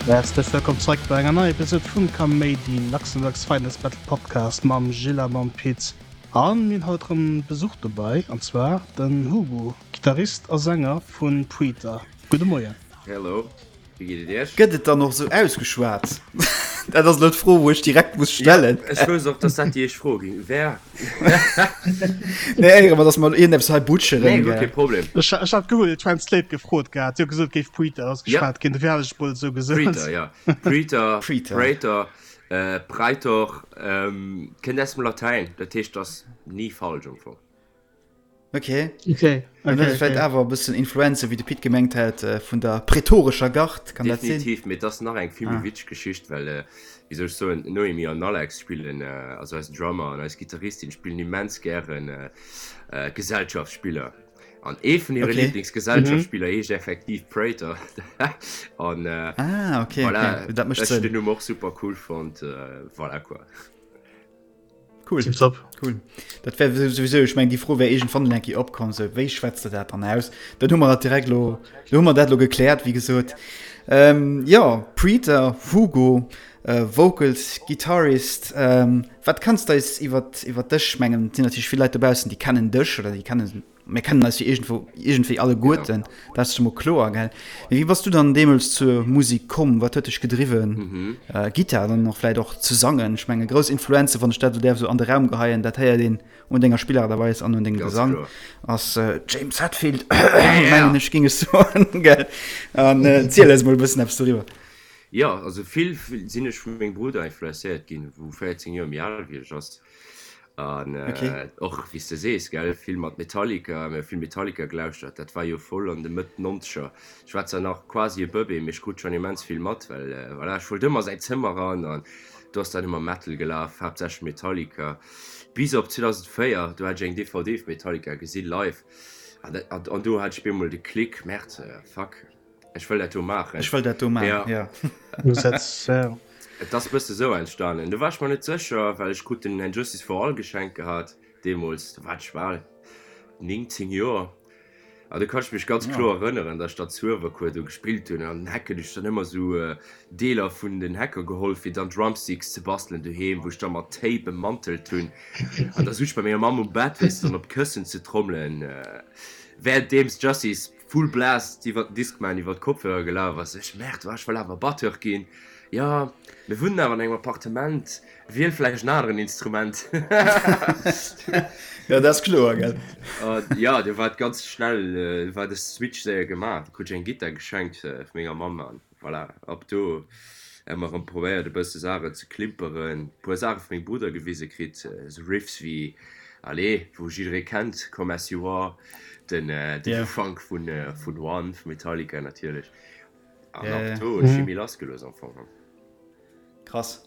Häerzlech wëllkomm zeréck bei enger neier Episode vum Kaméidi, Luxembourg's finest Metal Podcast mam Gilles a mam Pit. An mir hunn haut erëm Besuch dobäi, an zwar den Hugo, Gittarist a Sänger vu Praetor. Gudde Moien. Hello. Wéi geet et iech? Gëtt et dann och sou ausgeschwat? Dat ass elo d'Fro, wou ech direkt muss stellen. Ja, ech wousst och, dass dat déi éischt Fro ging wär. Nee, éiere mer, dass mer iergendeppes hei butcheren, Nee, guer kee Problem. Ech hat Google Translate gefrot gehat, déi huet gesot, et géif Praetor ausgeschwat ginn, dofir hat ech et mol esou gesot. Praetor, ja. Praetor, Praetor, Praetor, kënnt aus dem Latäin, dat heescht, ass ni falsch am Fong. Okay. Okay. Okay, okay. Vläicht awer e bëssen Influenze, wéi de Pit gemengt hat, äh, vun der prätorescher Gard, kann dat sinn? Definitiv, mee et ass nach eng vill méi ah. witzeg Geschicht, well, äh, wéi soll ech soen, d'Noémie an Alex spillen, äh, also eisen Drummer an eis Gittaristin spillen immens gären äh, äh, Gesellschaftsspiller. An ee vun hire okay. Lieblingsgesellschaftsspiller mhm. heescht effektiv Praetor. an äh, ah, okay, voilà, okay. Dat mécht Sënn. Ech den Numm och super cool fonnt, äh, voilà quoi. Cool. Tipptopp. Cool. Dat wär souwisou, ech meng déi Fro wär iergendwann eng Kéier opkomm, sou wéi schwätzt de dat dann aus? Dann hu mer dat direkt lo, lo hu mer dat lo gekläert, wéi gesot. Ähm, jo, Preeter, Hugo, äh, Vocals, Guitarist, ähm, wat kanns de eis iwwer iwwer dech, mengen et sinn natierlech vill Leit dobaussen, déi kennen dech oder déi kennen Mir kennen eis jo iergendwou, iergendwéi alleguerten, dat ass scho mol kloer, gell? Mee wéi bass du dann deemools zur Musek komm? Wat huet dech gedriwwen, Gittar dann och vläit och ze sangen? Ech menge grouss Influenze, wann ech dat esou däerf esou an de Raum geheien, dat héiert een un denger Spillaart a Weis an un dengem Gesang, ass James Hetfield, mengen ech, géing ech soen, gell? An ziel eis mol e bëssen eppes doriwwer. Jo, also vill sinn ech vu mengem Brudder influenzéiert ginn, wou 14 Joer méi al wéi ech ass. An okay. och wéi s de sees, gell, vill mat Metallica, mir hu vill Metallica gelauschtert, dat war jo voll an de Mëtt Nonzeger. Ech war zwar nach quasi e Bëbee, mee ech krut schonn immens vill mat, well voilà, ech wollt ëmmer a säin Zëmmer eran an do ass dann ëmmer Metal gelaf, haaptsächlech Metallica. Bis op 2004, do hat ech eng DVD vu Metallica gesi live an dat, an do hat ech bemol de Klick, Merde, fuck. Ech wëll dat do maachen. Ech wëll dat do maachen, ja. Ja. Et ass bësse sou entstanen. Do war ech mer net sécher, well ech krut den And Justice for All geschenkt gehat deemools. Do war ech bal 19 Joer. An do kann ech mech ganz kloer erënneren, datt ech da zu Uewerkuer do gespillt hunn. An den Hecken hunn ech dann ëmmer sou Deeler vun den Hecker geholl, fir dann Drumsticks ze bastelen doheem, wou ech da mat Tape bemantelt hunn. An da sot ech bei menger Mamm um Bett, weess de, dann op d'Këssen ze trommelen, wärenddeems Justice Full Blast iwwert den Discman iwwert d'Kopfhörer gelaf ass. Ech, Merde, ech wëll awer Batteur ginn. Jo, mir wunnen awer an engem Appartement, wiel vläicht en aneren Instrument. Jo, dat ass kloer, gell? Jo, do war et ganz schnell, war de Switch séier gemaach. Du krut ech eng Gittar geschenkt vu menger Mamm an voilà, ab do hu mer erëm probéiert e bësse Saachen ze klimperen, puer Saache vu mengem Brudder gewise kritt, esou Riffs wéi, allez, wou jidderee kennt, Come As You Are, den den Ufank vun vun One vu Metallica natierlech. An ab do hunn ech méi lass gelooss am Fong. Krass.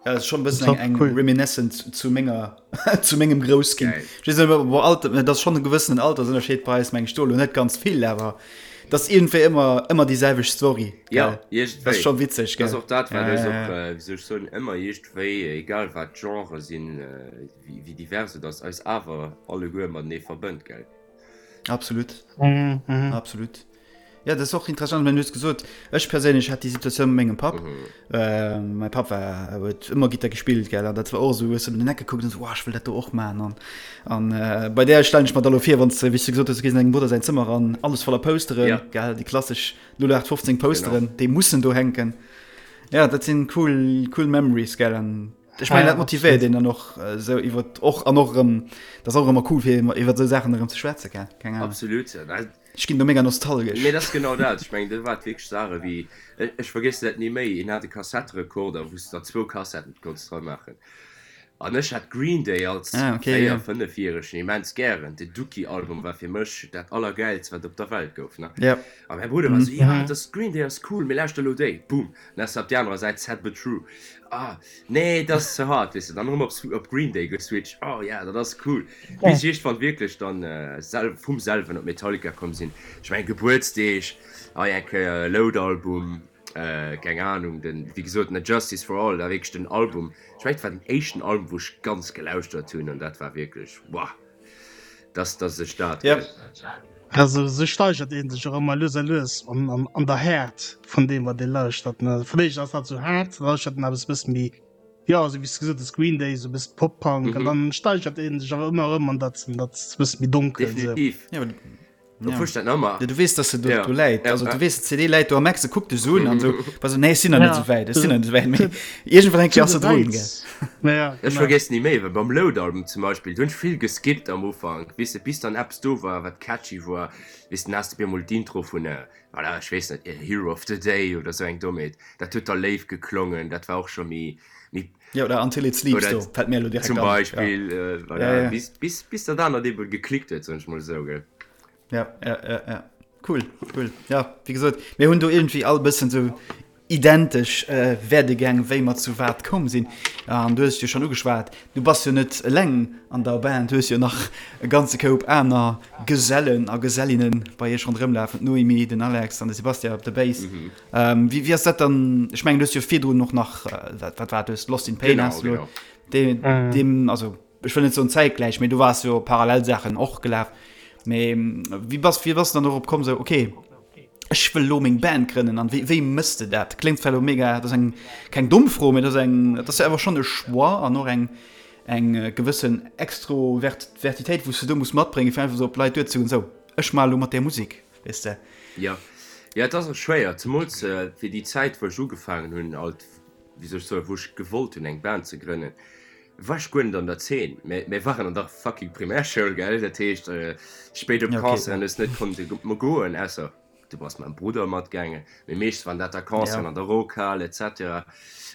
Ja, dat ass schonn e bëssen eng, eng Reminiscence zu menger, zu mengem Groussginn. Ech weess net, ob Alter, dat ass schonn e gewëssenen Altersënnerscheed bei eis, meng ech, do elo net ganz vill, awer dat ass iergendwéi ëmmer, ëmmer déi selwecht Story. Ja, iergendwéi. Dat ass scho witzeg, gell? Dat ass och dat, wat eis och, wéi soll ech soen, ëmmer iergendwéi, egal wat d'Genre sinn, wéi divers et ass, eis awer alleguer matenee verbënnt, gell? Absolut. Absolut. Ja, dat ass och interessant, mä du hues gesot, ech perséinlech hat déi Situatioun mat mengem Papp. Mäi Papp war, huet ëmmer Gittar gespillt, gell, an dat war och esou, hues du op den Eck gekuckt an esou, Wow, ech wëll dat do och maachen. An, an bei där stellen ech mer da lo vir, wann s de, wéi s du gesot hues, du gees an dengem Brudder säin Zëmmer eran, alles voller Posteren, Ja. gell, déi klassesch 0815 Posteren, déi mussen do hänken. Ja, dat sinn cool, cool Memories, gell, an ech mengen, dat motivéiert een dann och esou iwwer och an och erëm, dat ass och ëmmer cool, fir iwwer esou Saachen erëm ze schwätzen, gell, keng Ahnung. Absolut. Ech ginn do mega nostalgesch. Mee dat ass genau dat. Ech mengen, dat war wierklech Saache wéi, ech vergiessen dat ni méi, een hat e Kassetterekorder, wou s de der zwou Kassetten konns dra maachen. An ech hat Green Day als véier-, fënnefjäregen immens gären. Den Dookie-Album war fir mech dat Allergäilst, wat op der Welt gouf, ne? A mäi Brudder war esou, Jo, dat ass, Green Day ass cool, mee lauschter elo déi. Boom! Dann ass op déi anerer Säit Sad But True. Ah, nee, dat ass ze hard, weess de. Dann erëm op, op Green Day geswitcht. Oh ja, dat ass cool. Bis ech iergendwann wierklech dann sel vum selwen op Metallica komm sinn. Ech mengen, Gebuertsdeeg, hei eng Kéier e Load-Album, keng Anung, den, wéi gesot, den Justice for All, dat war wierklech den Album, ech mengen, et war den éischten Album, wou ech ganz gelauschtert hunn an dat war wierklech, wow, dass, dass ech dat. Ja. Also sou steigert een sech och ëmmer lues a lues an, an, an der Häert vun deem wat ee lauschtert ne. Fir d'éischt ass dat sou haart, da lauschtert en eppes bësse méi, jo esou wéi s de gesot hues Green Day, sou bëssen Pop-Punk an dann steigert een sech awer ëmmer erëm an dat, an dat bësse méi donkelt sou. Definitiv. Ja, Ja. Fusch dat ëmmer. Ja, du weess, dass se do, ja. do läit. Ja, also, du weess, d'CD läit do am Eck, se kuckt dech so un an so, also, nee, ech sinn nach net sou wäit, ech sinn nach net sou wäit. Mee iergendwann eng Kéier ass se drun, gell. Ja, ja, Ech vergiess ni méi, well beim Load-Album zum Beispill, do hunn ech vill geskippt am Ufank, weess de, bis dann eppes do war, wat catchy war, weess de, dann has de op eemol d'Intro vun, voilà, ech weess net, Hero of the Day oder sou eng Dommheet, dat huet da léif geklongen, dat war och scho méi, méi. Ja, oder Until It Sleeps, oder do fällt mir elo direkt zum Beispiel, ja. Äh, voilà, ja, ja. Bis, bis, bis dat anert eben geklickt huet, soen ech mol esou, gell. Ja, ja, ja, ja. Cool, cool. Ja, wéi gesot, mir hunn do irgendwie all bëssen sou identesch äh, Werdegäng, wéi mer zu wat komm sinn. An du hues jo schonn ugeschwat, du bass jo net eleng an der Band, du hues jo nach e ganze Koup aner Gesellen a Gesellinnen bei iech ronderëm lafen, d'Noémie, den Alex an de Sebastian op der Bass. Mhm. Ähm, wéi, wéi ass dat dann? Ech mengen, du hues jo virdrun och nach, äh, wat, wat war dat, du hues Lost in Pain Genau, has du genau. De, mm. Dem, also ech wëll net soen zäitgläich, mee du wars jo parallel Saachen och gelaf. Mee wéi bass, wéi bass du dann dorop komm, sou okay, ech wëll lo meng Band grënnen an wéi, wéi mëss de dat? Kléngt zwar lo mega, dat ass eng keng domm Fro, mee dat ass eng, dat ass jo awer schonn e Choix an och eng eng gewëssen Extrovertitéit, wou s du do muss matbréngen, fir einfach sou op d'Leit duerzegoen, sou ech maache lo mat där Musek. Weess de? Jo, jo, et ass och schwéier, zemools fir déi Zäit, wou ech ugefaangen hunn, alt, wéi soll ech soen, wou ech gewollt hunn, eng Band ze grënnen, war ech guer net an der Zeen. Mä mir waren an der fucking Primärschoul, gell? Dat heescht, spéit op Concerten hues net konnte goen, ausser du bass mam Brudder matgaangen. Mee meeschtens waren dat da Concerten an der Rockhal et cetera.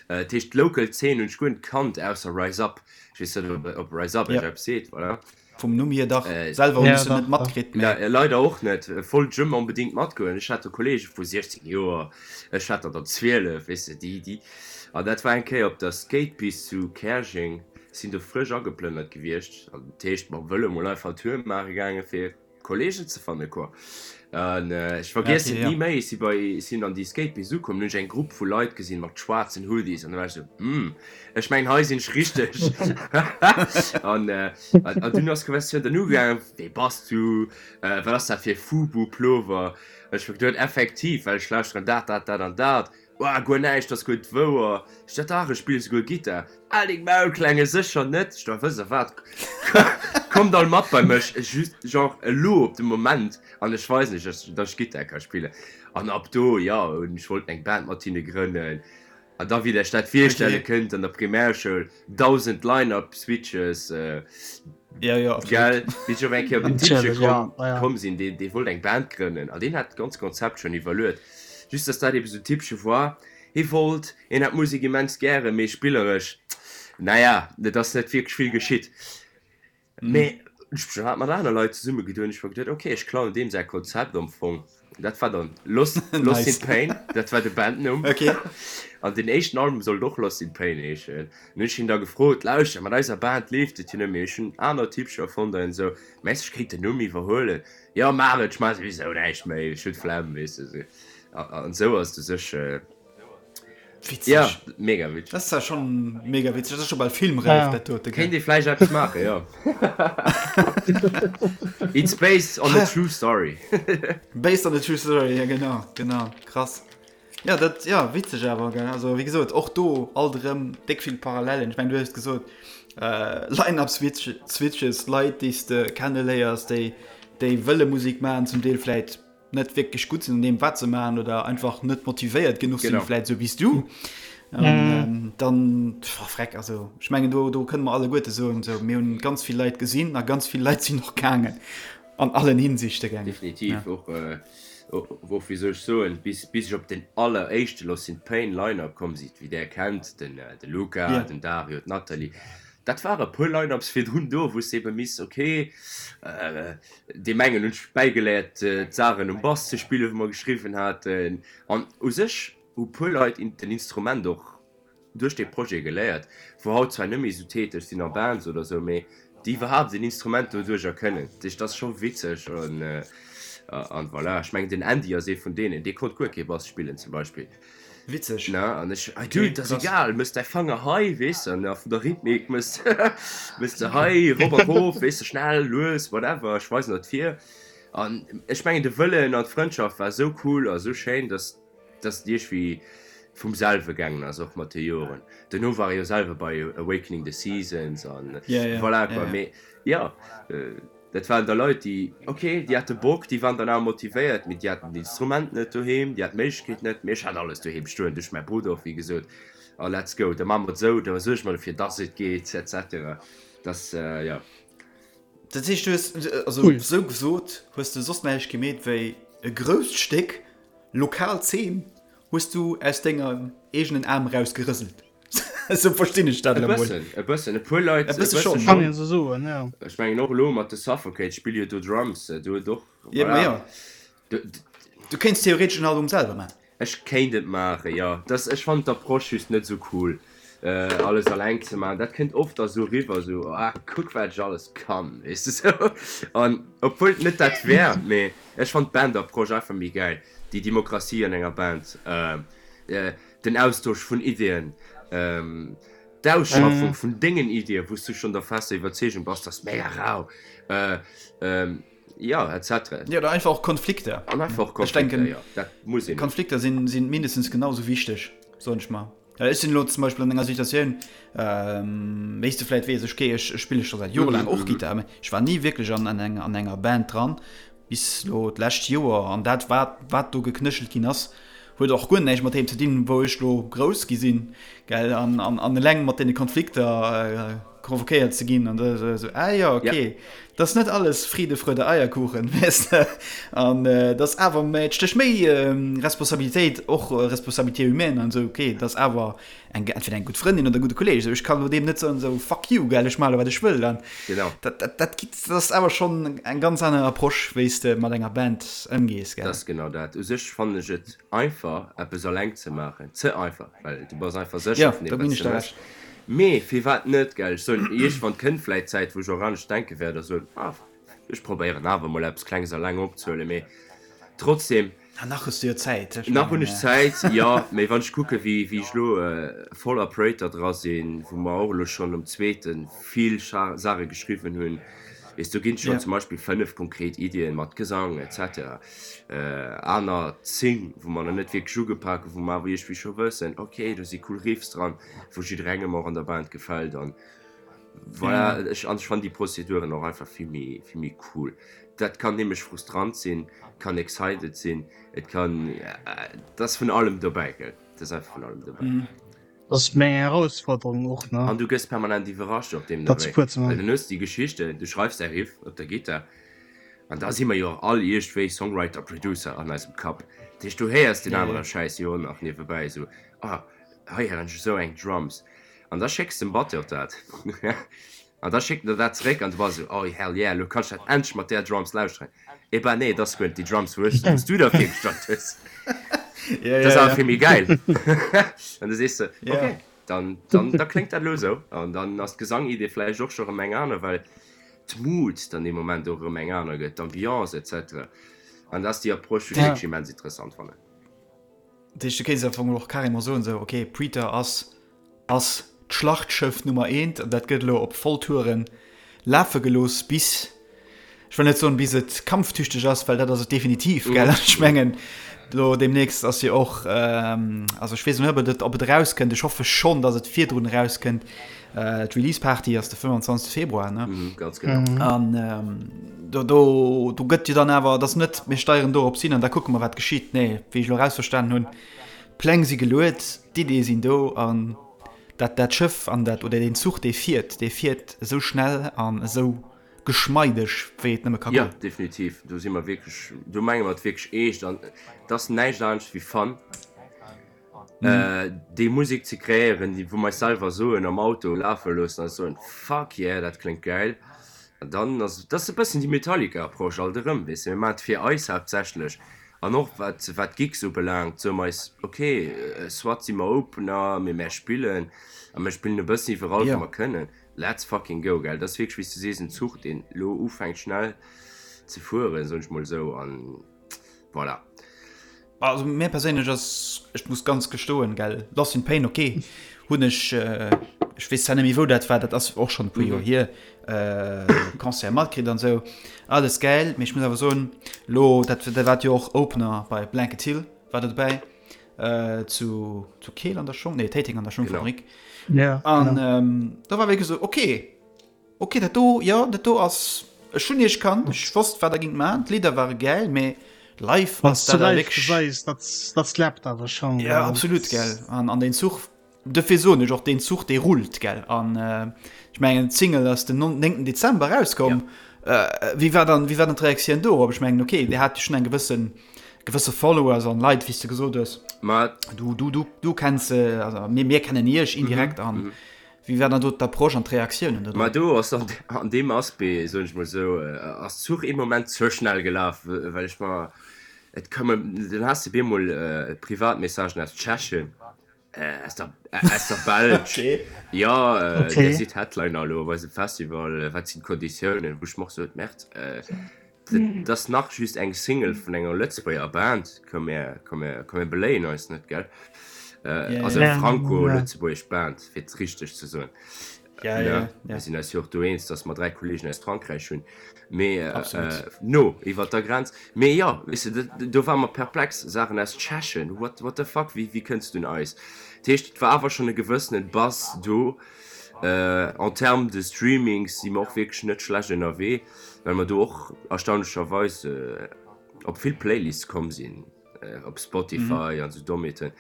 Dat heescht, d'local Zeen hunn ech guer net kannt, ausser Rise Up. Ech weess net, ob Rise Up iech eppes seet, voilà. Vum Numm hier dach, selwer hunn ech se net matkritt, mee. Leider och net, wollt ech ëmmer onbedingt matgoen. Ech hat do Kollege vu 16 Joer, ech hat der der 12, weess de, déi, déi. An dat war eng Kéier op der Skatepist zu Käerjeng, sinn do frësch ageplënnert gewiescht, an dat heescht mam Vëlo mol einfach Tour maache gaange fir Kollegen ze fanne quoi. An ech vergiessen et ni méi, ech si bei, sinn an déi Skatepist ukomm, hunn ech eng Grupp vu Leit gesinn mat schwaarzen Hoodies an da war ech esou, Hm, ech mengen hei sinn ech richteg. An an dunn ass d'Konversatioun dann ugaangen, Wee bass du, wat ass dat fir e Fubu-Plover? An ech hu geduet, effektiv, well ech lauschteren dat, dat, dat an dat. Woah, guer näischt, ass guer net wouer. Ech dat dach, ech spille souguer Gittar. Al deng Maul, Klenge, sécher net. Ech dat, wësst der wat, kommt all mat bei mech, just genre elo op de Moment, an ech weisen iech, dass ech Gittar ka spillen. An ab do, jo, hunn ech wollt eng Band mat hinne grënnen. An da, wéi der iech dat virstelle kënnt, an der Primärschoul, 1000 Line-Up Switches, Ja, ja, absolut. Gell, wéi ech op eng Kéier op den Tippche komm, komm sinn, deen, dee wollt eng Band grënnen an deen hat d'ganz Konzept schonn iwwerluet. Just dass dat eben esou Tippche war, hie wollt, hien hat d'Musek immens gären, mee spilleresch, naja, et ass net wierklech vill geschitt. Mee ech hat mat aner Leit zesummegedoen, ech hu geduet, ok, ech klauen deem säi Konzept am Fong. Dat war dann Lost, Lost in Pain, dat war de Bandnumm. Okay. An den éischten Album sollt och Lost in Pain heeschen. An hunn ech hien da gefrot, Lauschter, mat eiser Band leeft et jo net méi, ech hunn aner Typcher fonnt an esou, mengs du ech kéint den Numm iwwerhuelen? Jo, maach et, ech maache souwisou näischt méi, ech hunn d'Flemm, weess de. Esou. An esou ass et u sech. Witzeg. Ja, mega witzeg. Dat ass ja schon mega witzeg. Dat ass scho bal filmräif, dat dote. Kéint ee vläicht eppes maachen, jo. It's based on a true story. Based on a true story, ja genau, genau. Krass. Ja, dat, ja, witzeg awer, gell. Also, wéi gesot, och do alt erëm déck vill Parallelen. Ech meng, du hues gesot, äh, Line-up-Switches, Leit, déi s de kenneléiers, déi, déi wëlle Musek maachen, zum Deel vläit net wierklech gutt sinn an deem wat se maachen oder einfach net motivéiert genuch sinn, vläit esou wéi s du. An ähm, dann pff, freck, also ech mengen do, do kënne mer alleguerte soen, sou mir hunn ganz vill Leit gesinn a ganz vill Leit sinn och gaangen an allen Hinsichte gaangen. Definitiv ja. och äh, och wéi soll ech soen, bis, bis ech op den alleréischte Lost in Pain Line-Up komm sinn, wéi där kennt, den, äh, de Luca, yeah. den Dario, d'Nathalie, dat ware puer Line-Ups virdrun do, wou s de ebe miss, okay, äh, Deem engen hunn ech bäigeléiert d'Saachen um Bass ze spillen, wou mer geschriwwen haten. An u sech hu puer Leit den Instrument och duerch dee Projet geléiert, wou haut zwar net méi esou täteg sinn a Bands oder esou, mee déi iwwerhaapt en Instrument doduercher kënnen. Dat heescht, dat ass scho witzeg. An voilà, ech mengen den Andy ass ee vun deenen, dee konnt guer kee Bass spillen zum Beispill. Witzeg. Ne, an ech, ah dude, dat ass egal, mëss däi Fanger hei, weess de, an a vun der Rhythmik mëss, mëss de hei, rop a rof, weess de, schnell, lues, whatever, ech weisen der d'Vir. An ech mengen de Wëllen an d'Frëndschaft war esou cool a esou schéin, dass dass et iergwéi vum selwe gaangen ass, och mat de Joren. Duerno war e jo selwer bei Awakening the Seasons an voilà quoi. Mee jo, dat waren da Leit, déi, ok, déi hate Bock, déi waren dann awer motivéiert, mee déi haten d'Instrument net doheem, déi haten d'Méiglechkeet net. Mee ech hat alles doheem stoen, duerch mäi Brudder och, wéi gesot. A let's go, da maache mer et esou, da suerge mer dofir, dass et geet, et cetera. Dass, jo. Dat heescht, du hues, also esou gesot, hues de soss näischt gemeet wéi e grousst Stéck lokal Zeen hues du aus denger eegenen Aarm eraus gerëselt. Esou verstinn ech dat elo mol. E bëssen, e bëssen, e puer Leit, e bësse schonn. Kann een esou soen, jo. Ech mengen och elo mat de Suffocate spille jo do Drums, do huet och, voilà. Jo, jo. Du kéints theoretesch en Album selwer maachen. Ech kéint et maachen, jo. Dass, ech fannen d'Approche just net esou cool, alles alleng ze maachen. Dat kënnt oft da sou eriwwer, sou, ah, kuck wat ech alles kann, weess de sou. An obwuel et net dat wär, mee ech fannen d'Band-Approche einfach méi gäil, déi Demokratie an enger Band, den Austosch vun Iddien, d'Ausschaffung vun dengen Iddien, wou s du schonn der fester Iwwerzeegung bass, dass mega rau, jo, etc. Jo, oder einfach och Konflikter. An einfach och Konflikter, jo, dat muss een. Konflikter sinn mindestens genau esou wichteg, soen ech mer. Ech sinn elo zum Beispill an enger Situatioun, wéi s de vläit weess, ech gehe, ech spille scho säit jorelaang och Gittar, mä ech war ni wierklech an enger Band dran, bis elo d'lescht Joer. An dat, wat, wat do geknéchelt ginn ass, huet och guer näischt mat deem ze dinn, wou ech elo grouss gi sinn, gell, an, an, an eleng mat deene Konflikter provokéiert ze ginn an da esou, ah jo, okay, dat ass net alles Friede, Freude, Eierkuchen, weess de, an dat ass awer méi, et stécht méi Responsabilitéit, och Responsabilité humaine an esou, okay, dat ass awer eng, entweder eng gutt Frëndin oder e gudde Kolleeg, esou, ech kann elo deem net soen, esou, fuck you, gell, ech maache elo wat ech wëll, an Genau. dat, dat, dat gitt, dat ass awer schonn eng ganz aner Approche, wéi s de mat enger Band ëmgees, gell. Dat ass genau dat. U sech fannen ech et einfach, eppes alleng ze maachen, ze einfach, well du bass einfach sécher Jo, vun do deem, ginn wat s ech de der méchs. Recht. Mee firwat net, gell? Ech soen, iergendwann kënnt vläit d'Zäit, wou ech och anescht denke wäert a soen, ah, ech probéieren awer emol eppes Klenges alleng opzehuelen. Mee trotzdem. Ah, nach hues du jo Zäit. Ech Nach hunn ech Zäit, jo. Mee wann ech kucke wéi wéi ech elo voll Operator dra sinn, wou mer och elo schonn um zweete vill Saache geschriwwen hunn, weess, do ginn et schonn zum Beispill 5 konkret Iddien mat Gesang et cetera. Aner 10, wou mer nach net wierklech ugepak hunn, wou mer awer iergendwéi scho wëssen, ok, do si cool Riffs dran, wou jidderengem och an der Band gefält an voilà. Ech an ech fannen déi Prozeduren och einfach vill méi vill méi cool. Dat kann nämlech frustrant sinn, kann excited sinn, et kann, et ass vun allem dobäi, gell, et ass einfach vun allem dobäi. Dat ass meng Erausforderung och, ne? An du gëss permanent iwwerrascht op deem Dat Wee, well dann hues de déi Geschichten, du schreifs däi Riff op der Gittar an da si mer jo och all iergendwéi Songwriter, Producer an eisem Kapp, dat heescht du héiers deen anere Schäiss jo och nach niewebäi, esou, ah hei héieren ech esou eng Drums an da schécks dem Batteur dat an da schéckt en der dat zeréck an du bass esou, oh hell yeah, elo kann ech dat endlech mat där Drums lauschteren. Eh ben nee, et ass guer net déi Drums wou ech, wou s du der virgestallt hues. Ja, Dat ass ja, awer ja. vill méi gäil. An du sees de, Ja. okay, dann, dann, da kléngt dat elo esou. An dann ass d'Gesangidee vläicht och scho rëm eng aner, well d'Mood dann dee Moment och erëm eng aner gëtt, d'Ambiance et cetera. An dat ass déi Approche, wou ech Ja. wierklech immens interessant fannen. Dat heescht, du kéints am Fong och carrément soen, esou, okay, Praetor ass ass d'Schlachtschëff Nummer eent an dat gëtt elo op Volltouren lafe gelooss bis, ech wëll net soen bis et kampftüchteg ass, well dat ass et definitiv, gell? Ech mengen elo deemnächst ass jo och, also ech weess net ob et ob et erauskënnt, ech hoffe schonn, datt et virdrun erauskënnt, d'Release Party ass de 25 Februar, ne? Ganz genau. An do do do gëtt jo dann awer, et ass net mir steieren dorops hin an da kucke mer wat geschitt, nee, wéi ech elo erausverstanen hunn, D'Pläng si geluet, d'Iddie sinn do an dat dat Schëff an dat oder deen Zuch dee fiert, dee fiert esou schnell an esou geschmeideg wéi et nëmme ka Jo, goen. definitiv, do si mer wierklech, do menge mer et wierklech eescht an et ass näischt anescht wéi Fun, déi Musek ze kreéieren, déi wou mer eis selwer soen am Auto lafe loossen a soen, fuck yeah, dat kléngt gäil. An dann ass, dat ass e bëssen déi Metallica-Approche alt erëm, weess de, mir maachen et fir eis haaptsächlech An och wat wat d'Gigs ubelaangt, soe mer eis, ok, soit si mer Opener, mee mär spillen a mir spillen e bëssen iwwerall wou mer kënnen. Let's fucking go, gell. Dat ass wierklech, wéi s du sees, en Zuch, deen elo ufänkt schnell ze fueren, soen ech mol esou, an voilà. Also mir perséinlech ass, ech muss ganz gestoen, gell, Lost in Pain, ok, hunn ech. Ech weess zwar net méi wou dat war, dat ass och schonn e puer Joer hier, Concert matkritt an esou, alles gäil, mee ech muss awer soen, lo dat dat waart jo och Opener bei Blanket Hill war der dobäi zu zu Keel an der Schong, nee Téiteng an der Schongfabrik an do war wierklech esou okay. Ok, dat do, jo, dat do ass, ech hunn iech kannt, ech wosst wat der gingt man, d'Lidder ware gäil, mee live ass dat awer wierklech. Gesäis, dat, dat slappt awer schonn. Ja, absolut, gell, an, an deen Zuch, dofir soen ech och, deen Zuch, dee rullt, gell, an ech mengen, d'Single ass den 9. Dezember erauskomm. Ja. Wéi war dann, wéi war dann d'Reaktioun dorop? Ech mengen, ok, dir hat jo schonn eng gewëssen, gewësse Followers an Leit, wéi s de gesot hues. Ma. Du, du, du, du kenns se, also mir, mir kennen iech indirekt an. Mhm. Wéi war dann do d'Approche an d'Reaktiounen do drop? Ma do ass an an deem Aspect, soen ech mol esou, ass d'Zuch ee Moment ze schnell gelaf, well ech mer, et koumen, dann has de bemol Privatmessagen aus Tschechien, aus der aus der Belsch, jo, Dir sidd Headliner elo op eisem Festival, wat sinn d'Konditiounen? Wou ech mer och sot, Merde, dat ass nach just eng Single vun enger Lëtzebuerger Band, komm mir, komm mir, komm mir beléien eis net, gell? Also eng franco-lëtzebuergesch Band, fir et richteg ze soen. Ja, ja, ja. Mir sinn eis jo och do eens, datt mer 3 Kollegen aus Frankräich hunn, mee no iwwer der Grenz. Mee jo, weess de, do ware mer perplex, Saachen aus Tschechien, what, what the fuck, wéi, wéi kënns du un eis? Dat heescht, et war awer schonn e gewëssene Buzz do. En termes de Streamings si mer och wierklech net schlecht ënnerwee. Well mer do och erstaunlecherweis op vill Playlists komm sinn, op Spotify an esou Dommheeten,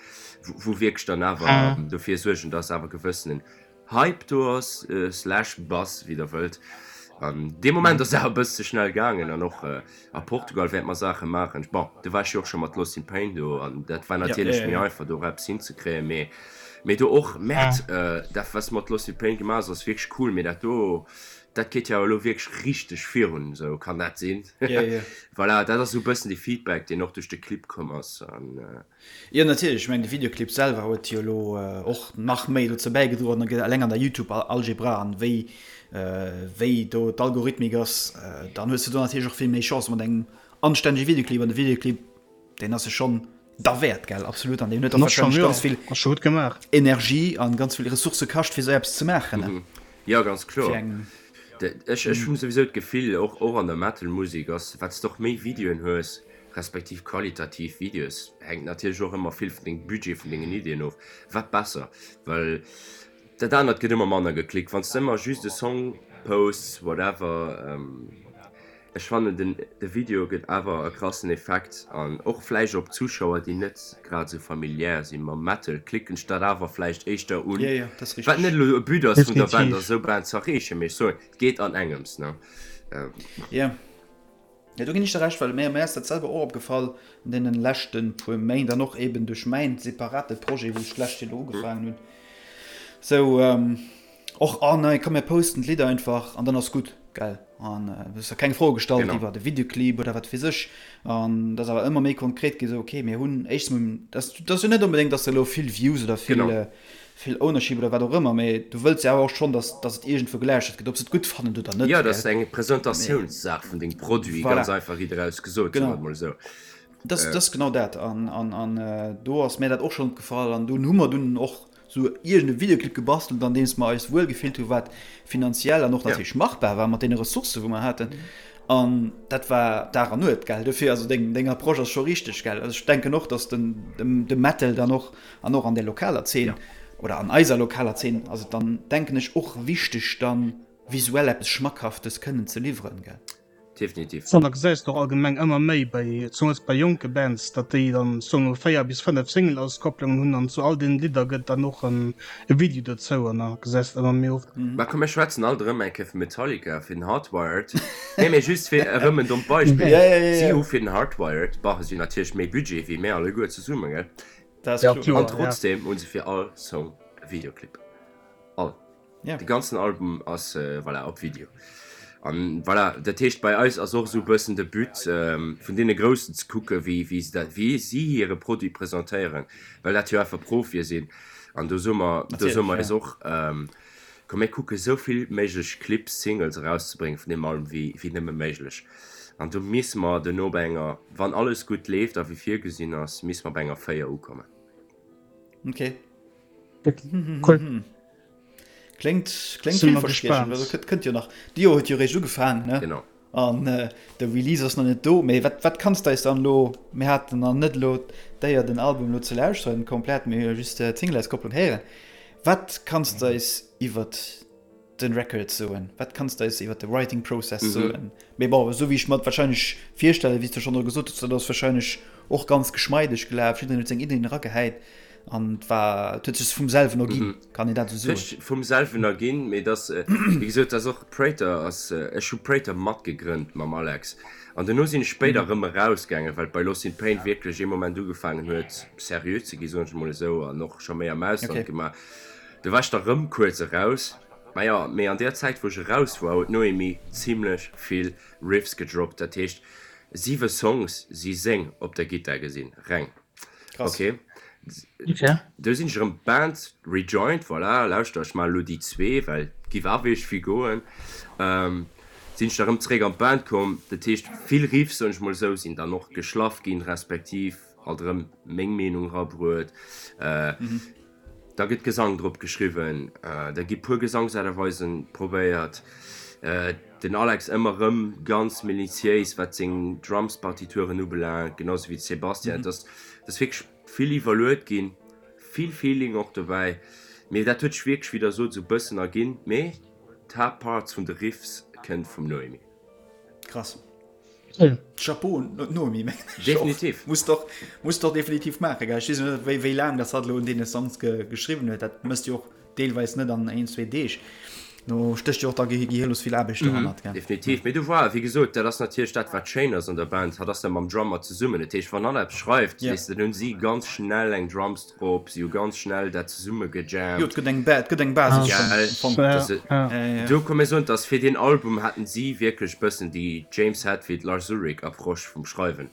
wou wierklech dann awer dofir suergen, dass awer gewëssenen Hype do ass, slash Buzz, wéi der wëllt. An dee Moment ass et awer e bësse ze schnell gaangen an och a Portugal wäerte mer Saache maachen. Bon, do war ech jo och scho mat Lost in Pain do an dat war natierlech méi einfach do och eppes hinzekréien, mee mee do och, Merde, dat wat s de mat Lost in Pain gemaach hues ass wierklech cool, mee dat do, Dat geet jo awer elo wierklech richteg virun, esou kann dat sinn? Ja, ja. Voilà, dat ass esou e bëssen de Feedback, deen och duerch de Clip komm ass. An. Jo, natierlech. Ech mengen, de Videoclip selwer huet jo elo och nach méi dozou bäigedroen, eleng an der Youtube-Algebra an wéi, wéi do d'Algorithmik ass, dann hues de do natierlech och vill méi Chance mat engem anstännege Videoclip. An de Videoclip, deen ass jo schonn Derwäert, gell? Absolut. An deen huet och wahrscheinlech ganz vill Energie an ganz vill Ressourcë kascht, fir esou eppes ze maachen, ne? Jo, ganz kloer. Ech hunn souwisou d'Gefill, och och an der Metal-Musek ass, wat s de och méi Videoen hues, respektiv qualitativ Videos, hänkt natierlech och ëmmer vill vun dengem Budget, vun dengen Iddien of, wat besser. Well dat anert gëtt ëmmer manner geklickt, wann s de ëmmer just e Song posts, whatever. Ech fannen den de Video gëtt awer e krassen Effekt an och vläicht op Zuschauer déi net grad esou familiär si mam Metal klicken ech dat awer vläicht éischter un, wat net elo e But ass vun der Band ass esou Band ze erreechen, mee ech soen et geet an engems ne. Jo jo do ginn ech der Recht, well mir ass dat selwer och opgefall an deenen leschten puer Méint an och eben duerch mäin separate Projet wou ech d'lescht Joer elo ugefaangen hunn sou. Och oh nei, komm mir posten d'Lidd einfach an dann ass gutt, gell? An du hues der keng Froe gestallt genau. iwwer de Videoclip oder wat weess ech. An dat ass awer ëmmer méi konkret gi sou, okay, mir hunn éischtens mol, dat dat ass jo net onbedéngt, dass de elo vill Views oder vill genau. vill Ownership oder wat och ëmmer, mee du wëlls jo awer och schonn, dass dass et iergendwou gelauschtert gëtt, ob se et gutt fannen oder net. Jo, dat ass eng Presentatiounssaach vun dengem Produit, voilà. ganz einfach riit eraus gesot, genau. soe mer mol esou. Dat ass genau dat. An an an do ass mär dat och schonn opgefall an dunn hu mer dunn och sou iergend e Videoclip gebastelt an deems mer eis wuel gefillt hu wat finanziell an och natierlech machbar war mat deene Ressourcë wou mer haten an dat war Dag an Nuet gell. Dofir also deng deng Approche ass scho richteg gell. Also ech denken och datt den de Metal dann och an och an der lokaler Zeen oder an eiser lokaler Zeen ass et dann denken ech och wichteg dann visuell eppes Schmackhaftes kënnen ze liwweren gell. Definitiv. An da gesäis de och allgemeng ëmmer méi bei, zemools bei jonke Bands, datt déi dann soen mol 4 bis 5 Single-Auskopplungen hunn an zu all deenen Lidder gëtt dann och en Video dozou an da gesäis de ëmmer méi oft. Mä komm mir schwätzen alt erëm eng Kéier vu Metallica fir den Hardwired. Nee, mee just fir erëm en dommt Beispill. Si hu fir den Hardwired, bah, si hunn natierlech méi Budget wéi mär alleguer zesummen, gell? An trotzdem hu se fir all Song e Videoclip. All. Ja. De ganzen Album ass äh, voilà, op Video. An voilà, dat heescht bei eis ass och esou bëssen de But ähm, vun deene Groussen ze kucke wéi, wéi se dat, wéi si hire Produit presentéieren, well dat jo einfach Profie sinn. An do soe mer, do soe mer eis och, ähm, komm mir kucke sou vill méiglech Clips, Singles erauszebréngen vun deem Album wéi, wéi nëmme méiglech. An do misse mer duerno bei enger, wann alles gutt leeft a wéi virgesinn ass, misse mer bei enger 4 ukommen. Okay. Cool. Kléngt, kléngt villverspriechend. Also kënnt, kënnt jo nach. De Joer huet jo réischt ugefaangen, ne? Genau. An de Release ass nach net do. Mee wat, wat kanns de eis dann elo, mir haten nach net elo d'Éier den Album elo ze lauschteren komplett, mir hu jo just d'Singleauskopplung héieren. Wat kanns de eis iwwert den Record soen? Wat kanns de eis iwwert de Writing Process soen? Mee bon, esou wéi ech mer et wahrscheinlech virstellen, wéi s de schonn elo gesot hues, dat ass wahrscheinlech och ganz geschmeideg gelaf, jiddereen huet seng Iddien eragehäit an et war, et huet sech vum selwen erginn, kann een dat esou soen? Sech vum selwen erginn, mee et ass, wéi gesot, et ass och, Prater ass, ech hu Prater matgegrënnt mam Alex an duerno sinn ech spéider erëm erausgaangen, well bei Lost in Pain wierklech ee Moment ugefaangen huet seriö ze gi, soen ech emol esou, an och scho méi am Ausland gemaach. Du war ech da rëm kuerz eraus. Maja, mee an där Zäit wou ech eraus war huet d'Noémie zimlech vill Riffs gedroppt, dat heescht 7 Songs si seng op der Gittar gesinn, reng. Krass. Ok, du sinn ech erëm d'Band rejoined, voilà, lauschter ech maachen elo déi zwee, well et giff awer iergendwéi goen, sinn ech da rëm zeréck an d'Band komm, dat heescht vill Riffs, soen ech mol esou, sinn dann och geschlaff ginn, respektiv alt erëm meng Meenung rabruet. Da gëtt Gesang drop geschriwwen, da gi puer Gesangsaarterweisen probéiert. Den Alex ëmmer rëm ganz minutiéis wat seng Drumspartituren ubelaangt, genau sou wéi de Sébastien. Et ass et ass wierklech vill iwwerluet ginn, vill Feeling och dobäi, mee dat huet sech wierklech, wéi der sot, esou bëssen erginn. Mee d'Haaptparts vun de Riffs kënnt vum Noémie. Krass. Chapeau un d'Noémie, mengen ech. Definitiv. Muss doch, muss doch definitiv maachen, gell? Ech weess net, wéi, wéi laang dass hatt elo un deene Songs ge, geschriwwen huet. Dat méchs du jo och deelweis net an een, zwee Deeg. Do stécht jo och da gehirlos vill Aarbecht dohannert, gell? Definitiv. Mee du vois, wéi gesot, dat ass natierlech dat, wat schéin ass an der Band. Hatt ass da mam Drummer zesummen. Dat heescht, wann hatt eppes schreift, weess de, dann hunn si ganz schnell eng Drums drop, si hu ganz schnell dat zesumme gejammt. Jo, et gëtt eng, et gëtt eng Basis schonn am Fong. Gell, dass do komm mir soen, dass fir deen Album haten si wierklech bëssen déi James Hetfield, Lars Ulrich Approche vum Schreiwen.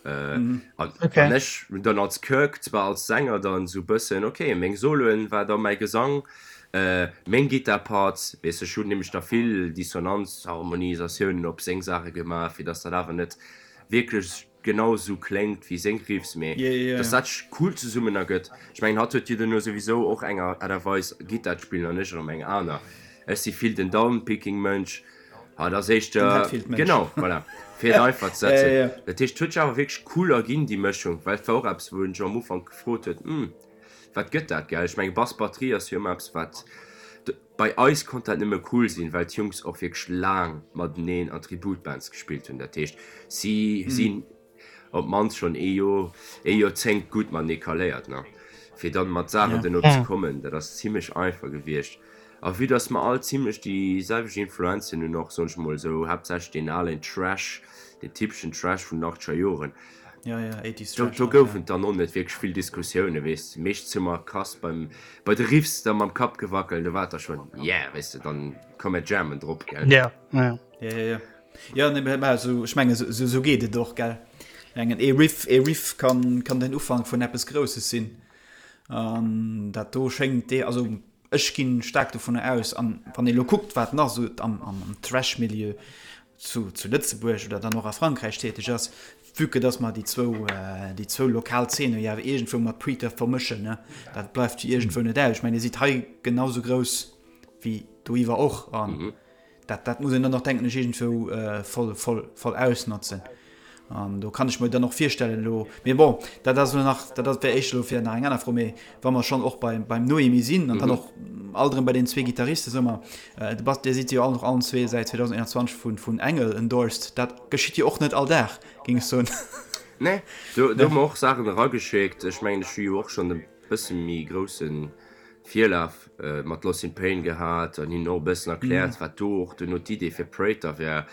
An an ech hunn dann als Kirk zwar als Sänger dann esou bëssen, ok, meng Soloen war da mäi Gesang, meng Gittar-Parts, weess ech hunn nämlech da vill Dissonanz-Harmonisatiounen op seng Saache gemaach, fir dass dat awer net wierklech genau sou kléngt wéi seng Riffs, mee dass dat sech cool zesummen ergëtt. Ech mengen hatt huet jo duerno souwisou och eng Aart a Weis Gittar ze spillen an ech erëm eng aner. Ech si vill den Downpicking Mënsch, hatt ass éischter, genau, voilà, fir et einfach ze setzen. Dat heescht et huet sech awer wierklech cool erginn déi Mëschung, well et war och eppes wou en sech am Ufank gefrot huet, hm wat gëtt dat, gell? Ech menge Bass Batterie ass jo ëmmer eppes wat. Bei eis konnt dat nëmme cool sinn, well d'Jungs och wierklech laang mateneen an Tributbands gespillt hunn. Dat heescht, si sinn op d'mannst schonn ee Joer, ee Joerzéngt gutt matenee kaléiert, ne? Fir dann mat Saachen duerno ze kommen, dat ass zimlech einfach gewiescht. A vue dass mer all zimlech déi selwecht Influenzen hunn, och, soen ech mol esou, haaptsächlech deen alen Trash, deen typeschen Trash vun den achtzeger Joren, Ja, ja, 80s Do, Trash do halt, goufen ja. et dann och net wierklech vill Diskussiounen, weess de. Meeschtens hu mer krass beim, bei de Riffs da mam Kapp gewackelt, do war et da schonn, yeah, weess de, dann komm mir jammen drop, gell. Ja, ja. Ja, ja, ja. Ja, nee, mä esou, ech mengen, esou, esou geet et och, gell. Ech mengen, ee Riff, ee Riff kann, kann den Ufank vun eppes Grousses sinn. An dat do schéngt dee, also ech ginn staark dovunner aus, an wann ee lo kuckt, wat nach esou am, am Thrash-Milieu zu, zu Lëtzebuerg oder dann och a Frankräich täteg ass, vue que dass mer déi zwou, déi zwou lokal Zeene jo awer iergendwou mat Preacher vermëschen, ne, dat bleift jo iergendwou net aus. Ech mengen, Dir sidd hei genau sou grouss wéi doiwwer och an dat, dat muss een dann och, denken ech, iergendwou voll, voll, voll ausnotzen. An do kann ech mer dann och virstellen elo, mee bon, dat ass elo nach, dat ass, wär éischter elo fir nach eng aner Fro, mee wa mer schonn och beim, beim Noémie sinn an dann och alt erëm bei den zwee Gitarriste, soe mer, de Bass, Dir sidd jo all, allen zwee säit 2021 vun, vun Engel endorsed, dat geschitt jo och net all Dag, géing ech soen. Nee, do, do hu mer och Saachen erageschéckt. Ech mengen, ech hu jo och schonn e bësse méi grousse Virlaf mat Lost in Pain gehat an hinnen och e bëssen erkläert, wat do och duerno d'Idee fir Prater wär.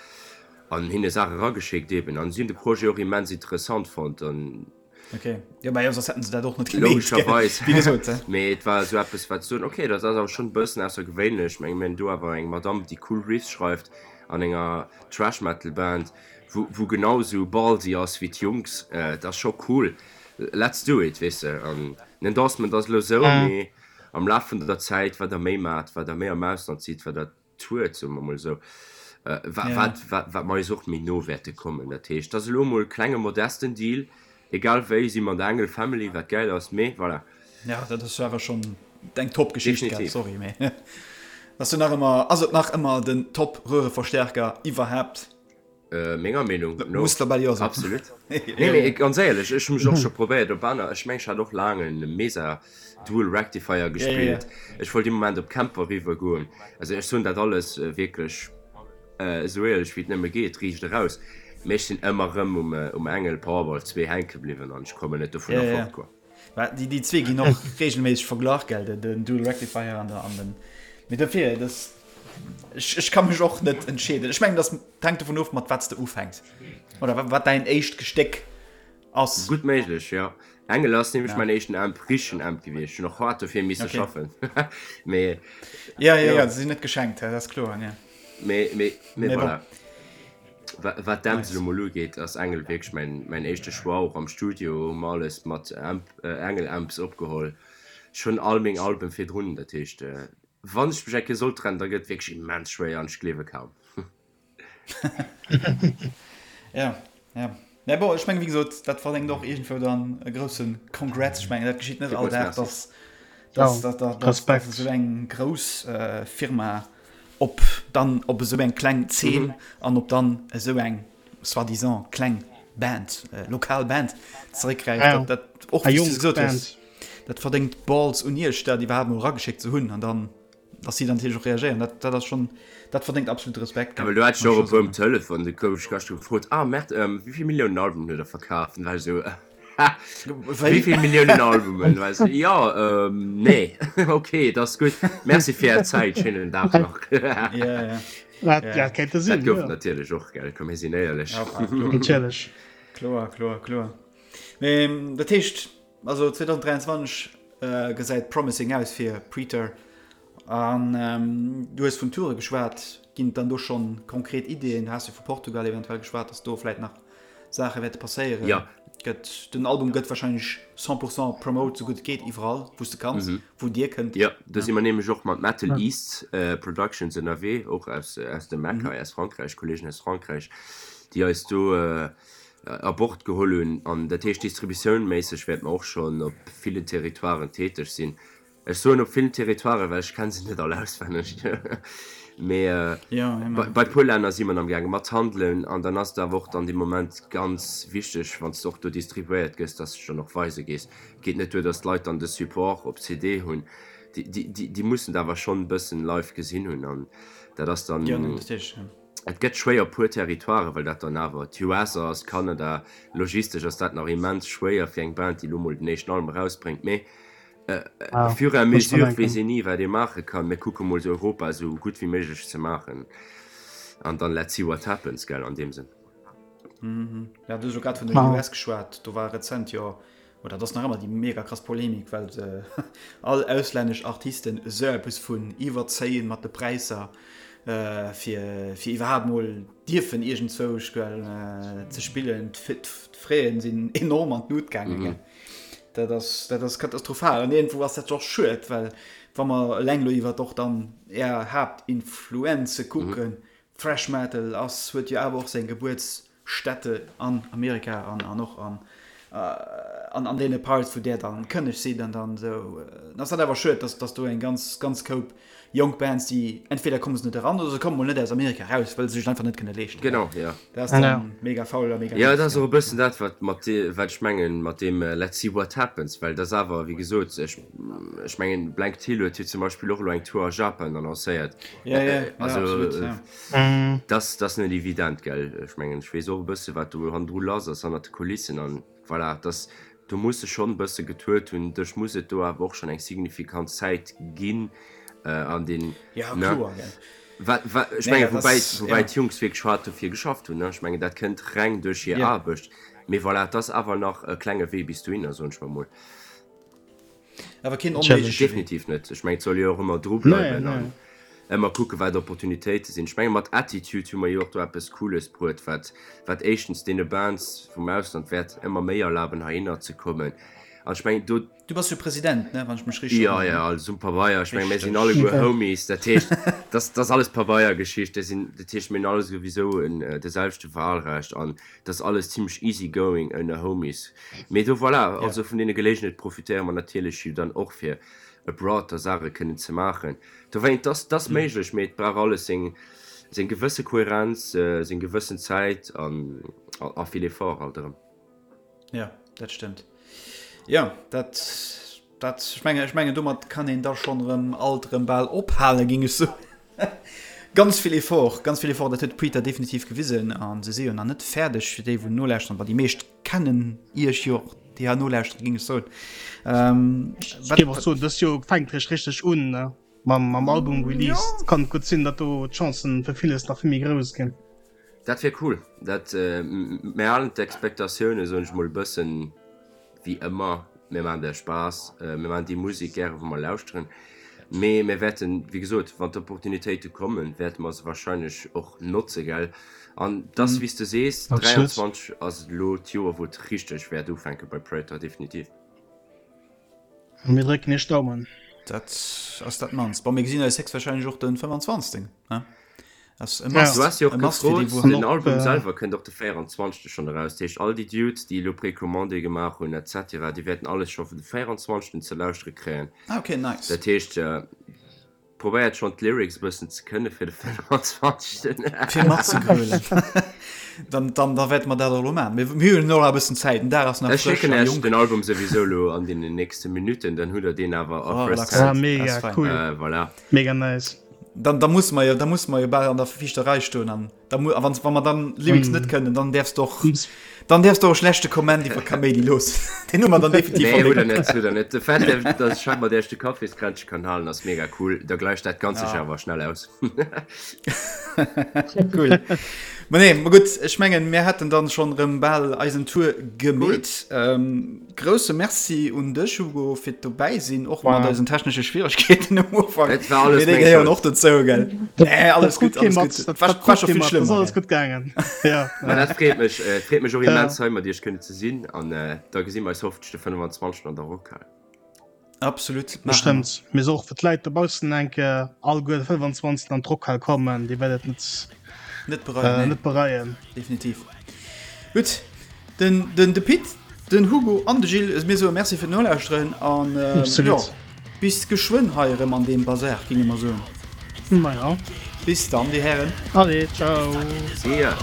An hinne Saache rageschéckt eben. An si hunn de Projet och immens interessant fonnt an. Ok, jo mä jo soss hätten se dat och net gemeet, gell? Logescherweis. Wéi gesot, he. Mee et war esou eppes wat soen, ok, dat ass awer schonn e bëssen aussergewéinlech. Ech menge mir hunn do awer eng Madame déi cool Riffs schreift an enger Thrash Metal Band, wou wou genau esou ballsy ass wéi d'Jungs. Dat ass scho cool. Let's do it, weess de. An den Endorsement ass elo esou, mee am Laf vun der Zäit, wat der méi maacht, wat der méi am Ausland sidd, wat der Tour, soe mer mol esou, wat, wat, wat mer eis och méi no wäerte kommen. Dat heescht, dat ass elo emol e klenge modesten Deal, egal wéi si mer an der Engel Family, wat gäil ass, mee voilà. Ja, dat ass awer schonn eng Top-Geschicht, gell? Sorry, mee. Ass jo nach ëmmer, ass et nach ëmmer den Top Röhreverstärker iwwerhaapt? Menger Meenung no. Muss der bal jo soen. Absolut. Nee, mee ganz éierlech, ech hu mech och scho probéiert op aner, ech meng ech hat och laang en Mesa Dual Rectifier gespillt. Ech wollt ee Moment op Kemper riwwer goen. Also ech soen dat alles wierklech esou éierlech wéi et nëmme geet, riicht eraus. Mee ech sinn ëmmer erëm um Engel Powerball 2 hänke bliwwen an ech kommen net dovunner fort, quoi. Mä déi, déi zwee ginn och regelméisseg verglach, gell, den, den Dual Rectifier an der, an den, mee dofir, das, ech, ech ka mech och net entscheeden. Ech mengen, das hänkt dovun of, mat wat s de ufänks oder wat, wat däin éischt Gestéck ass. Gutt méiglech, jo. Engel ass nämlech mäin éischten Amp, richtegen Amp gewiescht. Hunn och haart dofir misse Okay. schaffen. Mee, Ja, ja, jo. ja, se sinn net geschenkt, dat ass kloer, ja. Mee, mee, mee Mee bon. voilà. Wat d'Amps Nice. elo mol ugeet, ass Engel wierklech mäin, mäin éischte Choix. Och am Studio hu mer alles mat Amp, Engel Amps opgeholl. Ech hunn all meng Alben virdrun, dat heescht, wann ech mech eng Kéier sollt trennen, da gëtt et wierklech immens schwéier an ech gleewe kaum. Ja, ja. Mä bon, ech mengen, wéi gesot, dat verdéngt och iergendwou dann e grousse Congrats. Ech mengen, dat geschitt net all Villmools Dag, Merci. dass, dass, Ja, dass, dass, dass Respekt. esou eng grouss Firma op dann op esou eng kleng Zeen an op dann esou eng soi-disant kleng Band, lokal Band zeréckgräift. Ja, Dat, dat och eng wéi s du jonk gesot hues, Band. dat verdéngt Balls un Iech, dat iwwerhaapt mol erageschéckt ze hunn an dann, dass si dann natierlech och reagéieren. Dat, dat ass schonn, dat verdéngt absolut Respekt, Ja, gell, well do hat ech muss och ech e scho puer um soen. Telefon, du gouf ech gëschter gefrot, ah Mert, wéi vill Milliounen Albumen huet der verkaf? Dann war ech esou, Ha, wéi Wéi? vill Milliounen Albumen? War ech esou, jo, nee, ok, dat ass gutt, merci fir är Zäit, schéinen Dag nach. Ja, ja. Dat, Ja. dat kéinte Dat sinn, gouf jo. et natierlech och, gell, komm mir sinn éierlech. Ja, kloer. Natierlech. Kloer, kloer, kloer. Mee dat heescht, also 2023 gesäit promising aus fir Praetor. An du hues vun Toure geschwat. Ginn et dann do schonn konkret Ideeën? Du has jo vu Portugal eventuell geschwat, datt do vläit nach Saache wäerte passéieren. Ja. Gëtt, den Album gëtt warscheinlech 100 pourcent promote, sou gutt et geet, iwwerall wou s de kanns, wou dir kënnt. Jo, do si mer nämlech och mat Metal East Productions ënnerwee, och aus aus dem Eck hei, aus Frankräich, Kolleegen aus Frankräich, déi eis do a Bord geholl hunn. An dat heescht, distributiounméisseg wäerte mer och schonn op villen Territoiren täteg sinn. Ech soen op villen Territoiren, well ech kenne se net all auswenneg. Mee bei puer Länner si mer am gaange mat handelen. An dann ass et awer och dann dee Moment ganz wichteg, wann s de och do distribuéiert gëss, dass s de dech dann och weise gees. Et geet net duer, dass d'Leit dann de Support op CD hunn. Déi mussen et awer schonn e bëssen live gesinn hunn. An dat ass dann. Et gëtt schwéier op puer Territoiren, well dat dann awer d'US ass, Kanada. Logistesch ass dat nach immens schwéier fir eng Band, déi elo mol den éischten Album erausbréngt. Mee Au fur et à mesure weess een ni wat ee maache kann. Mir kucke mol Europa esou gutt wéi méiglech ze maachen an dann let's see what happens, gell, an deem Sënn. Ja, du hues elo grad vun den US geschwat, do war rezent jo, oder et ass nach ëmmer déi mega krass Polemik, well se all auslännesch Artisten esou eppes vun iwwerzéien mat de Präisser, fir fir iwwerhaapt mol dierfen iergendzwousch, gell, ze spillen. D'Fraisen sinn enorm an d'Lut gaangen, gell. Dat ass, dat ass katastrophal. An iergendwou ass dat och schued, well wa mer eleng elo iwwert och dann Är Haaptinfluenze kucken, Thrash Metal ass, huet jo awer och seng Gebuertsstätte an Amerika an, an och an, an, an deene Parts, wou där dann kënneg sidd an dann esou. Dann ass dat awer schued, dass, dass do eng ganz, ganz Koup jonk Bands, déi entweder komme se net eran oder se komme mol net aus Amerika eraus, well se sech et einfach net kënne leeschten. Genau, jo. Dat ass dann mega faul a mega Jo, doof. dat ass och e bëssen dat, wat mat dee, wat ech mengen mat deem Let's see what happens, well dat ass awer, wéi gesot, ech, ech mengen, Blank Till huet jo zum Beispill och elo eng Tour a Japan annoncéiert. Ja, ja, ja, Also, absolut, ja. dat ass, dat ass net evident, gell. Ech mengen, ech weess och e bësse wat do hannendru lass ass, hannert de Kulissen an. Voilà, dass do muss e schonn e bësse getuert hunn. Dech muss et do awer och schonn eng signifikant Zäit ginn an den, Ja, ne? kloer, gell. Wat, wat, ech Nee, mengen, dat woubäi, ass, woubäi ja. d'Jungs wierklech haart dofir geschafft hunn, ne? Ech mengen, dat kënnt reng duerch hir Ja. Aarbecht. Mee voilà, et ass awer nach e klenge Wee bis dohinner, soen ech mer mol. Awer keen onméigleche Wee. Definitiv net. Ech mengen, et soll jo och ëmmer dru Nee, bleiwen nee. an ëmmer kucken, wat Opportunitéite sinn. Ech menge mat Attitude hu mer jo och do eppes Cooles bruet, wat, wat éischtens deene Bands vum Ausland wäert ëmmer méi erlaben, heihinner ze kommen. An ech mengen, do. Du bass jo President, ne, wann ech mech richteg Jo, erënneren? jo, alles um Pabeier. Ech menge mir sinn Richteg. alleguer Homies. Dat heescht, dat ass alles Pabeiergeschicht. Dat sinn, dat heescht, mir hunn alle souwisou en de selwechte Wahlrecht an dat ass alles zimlech easy going ënner Homies. Mee do, voilà, Ja. also vun deene Gelegenheet profitéiere mer natierlech jo dann och, fir. abroad da Saache kënnen ze maachen. Dowéint, dass dass méiglech, mee et brauch alles seng seng gewësse Kohärenz, seng gewëssen Zäit an a vill Effort alt erëm. Jo, dat stëmmt. Jo, dat dat ech menge ech mengen domat kann een da schonn erëm alt erëm bal ophalen, géing ech soen. Ganz vill Effort, ganz vill Effort, dat huet d'Prita definitiv gewisen a se si jo nach net fäerdeg, fir déi wou nolauschteren, well déi meescht kennen iech jo och, déi hei nolauschteren, géing ech soen. Ähm, Ech géif och soen, dëst Joer fänkt réischt richteg un, ne? Mam mam Album Release. Jo. Kann et gutt sinn, datt do d'Chancen fir villes nach vill méi grouss ginn. Dat wier cool. Dat, mir halen d'Expectatioune, soen ech mol, e bëssen wéi ëmmer. Mir maachen der Spaass, mir maachen déi Musek gäre wou mer lauschteren. Mee mir wäerten, wéi gesot, wann d'Opportunitéite kommen, wäerte mer se warscheinlech och notze, gell. An et ass wéi s de sees, 23 ass elo d'Joer wou et richteg wäert ufänke bei Praetor, definitiv. Mir drécken iech d'Daumen. Dat ass dat mannst. Bon, mir gesinn eis héchstwahrscheinlech och den 25. Ne? Ass e Must. Du has jo och gefrot, den Album selwer kënnt och de 24. schonn eraus. Dat heescht, all déi Dudes, déi elo Precommandé gemaach hunn et cetera, déi wäerten alles scho vun de 24. ze lauschtere kréien. Ah, okay, nice. Dat heescht, probéiert schonn d'Lyrics e bëssen ze kënne fir de 25. Fir matzegrölen. Dann, dann, da wäerte mer dat och elo maachen. Mir, mir hunn och nach e bëssen Zäit, den Dag ass nach Ech frësch schécken a Iech jonk. den Album souwisou elo an deenen nächste Minutten, dann hutt der deen awer a Oh, first relax. Ah, hand. mega Ass fein. cool. Äh, voilà. Mega nice. Dann, da muss mer jo, da muss mer jo bal an der viischter Rei stoen an da mu, a wann, wa mer dann Lyrics net kënnen, dann däerfs de och, dann däerfs de och e schlechte Comment iwwer Kaméidi loossen. Deen hu mer dann definitiv Nee, hutt der verlénkt. net, hutt der net. De Fait, datt ech hei mat Iech de Kaffiskränzche kann halen, ass mega cool. Da gläicht dat Ganzt sech Ja. awer schnell aus. Cool. Ma nee, ma gutt, ech mengen, mir hätten dann schonn erëm bal eisen Tour gemeet. Ähm, grousse Merci un dech, Hugo, fir d'dobäi sinn, och mat eisen technesche Schwieregkeeten um Ufank. Et war alles Mee déi gehéieren och dozou, gell? Nee, alles gutt, alles gutt. Dat war, war scho vill schlëmmer. Ass alles gutt gaangen. Ja. Ma dat freet mech, et freet mech och immens, hei mat iech kënnen ze sinn. An da gesi mer eis hoffentlech de 25. an der Rockhal. Absolut. Bestëmmt. Mir soe och fir d'Leit dobaussen eng Kéier, alleguer de 25. an d'Rockhal kommen, Dir wäert et net, net bereien. Äh, net bereien. Definitiv. Gutt, den, den, de Pit, den Hugo an de Gilles, mir soe Merci fir d'Nolauschteren an äh, Absolut. jo, bis geschwënn hei erëm an deem Bazar, ginge mer soen. Maja. Bis dann, dir Hären. Allez, ciao. See ya.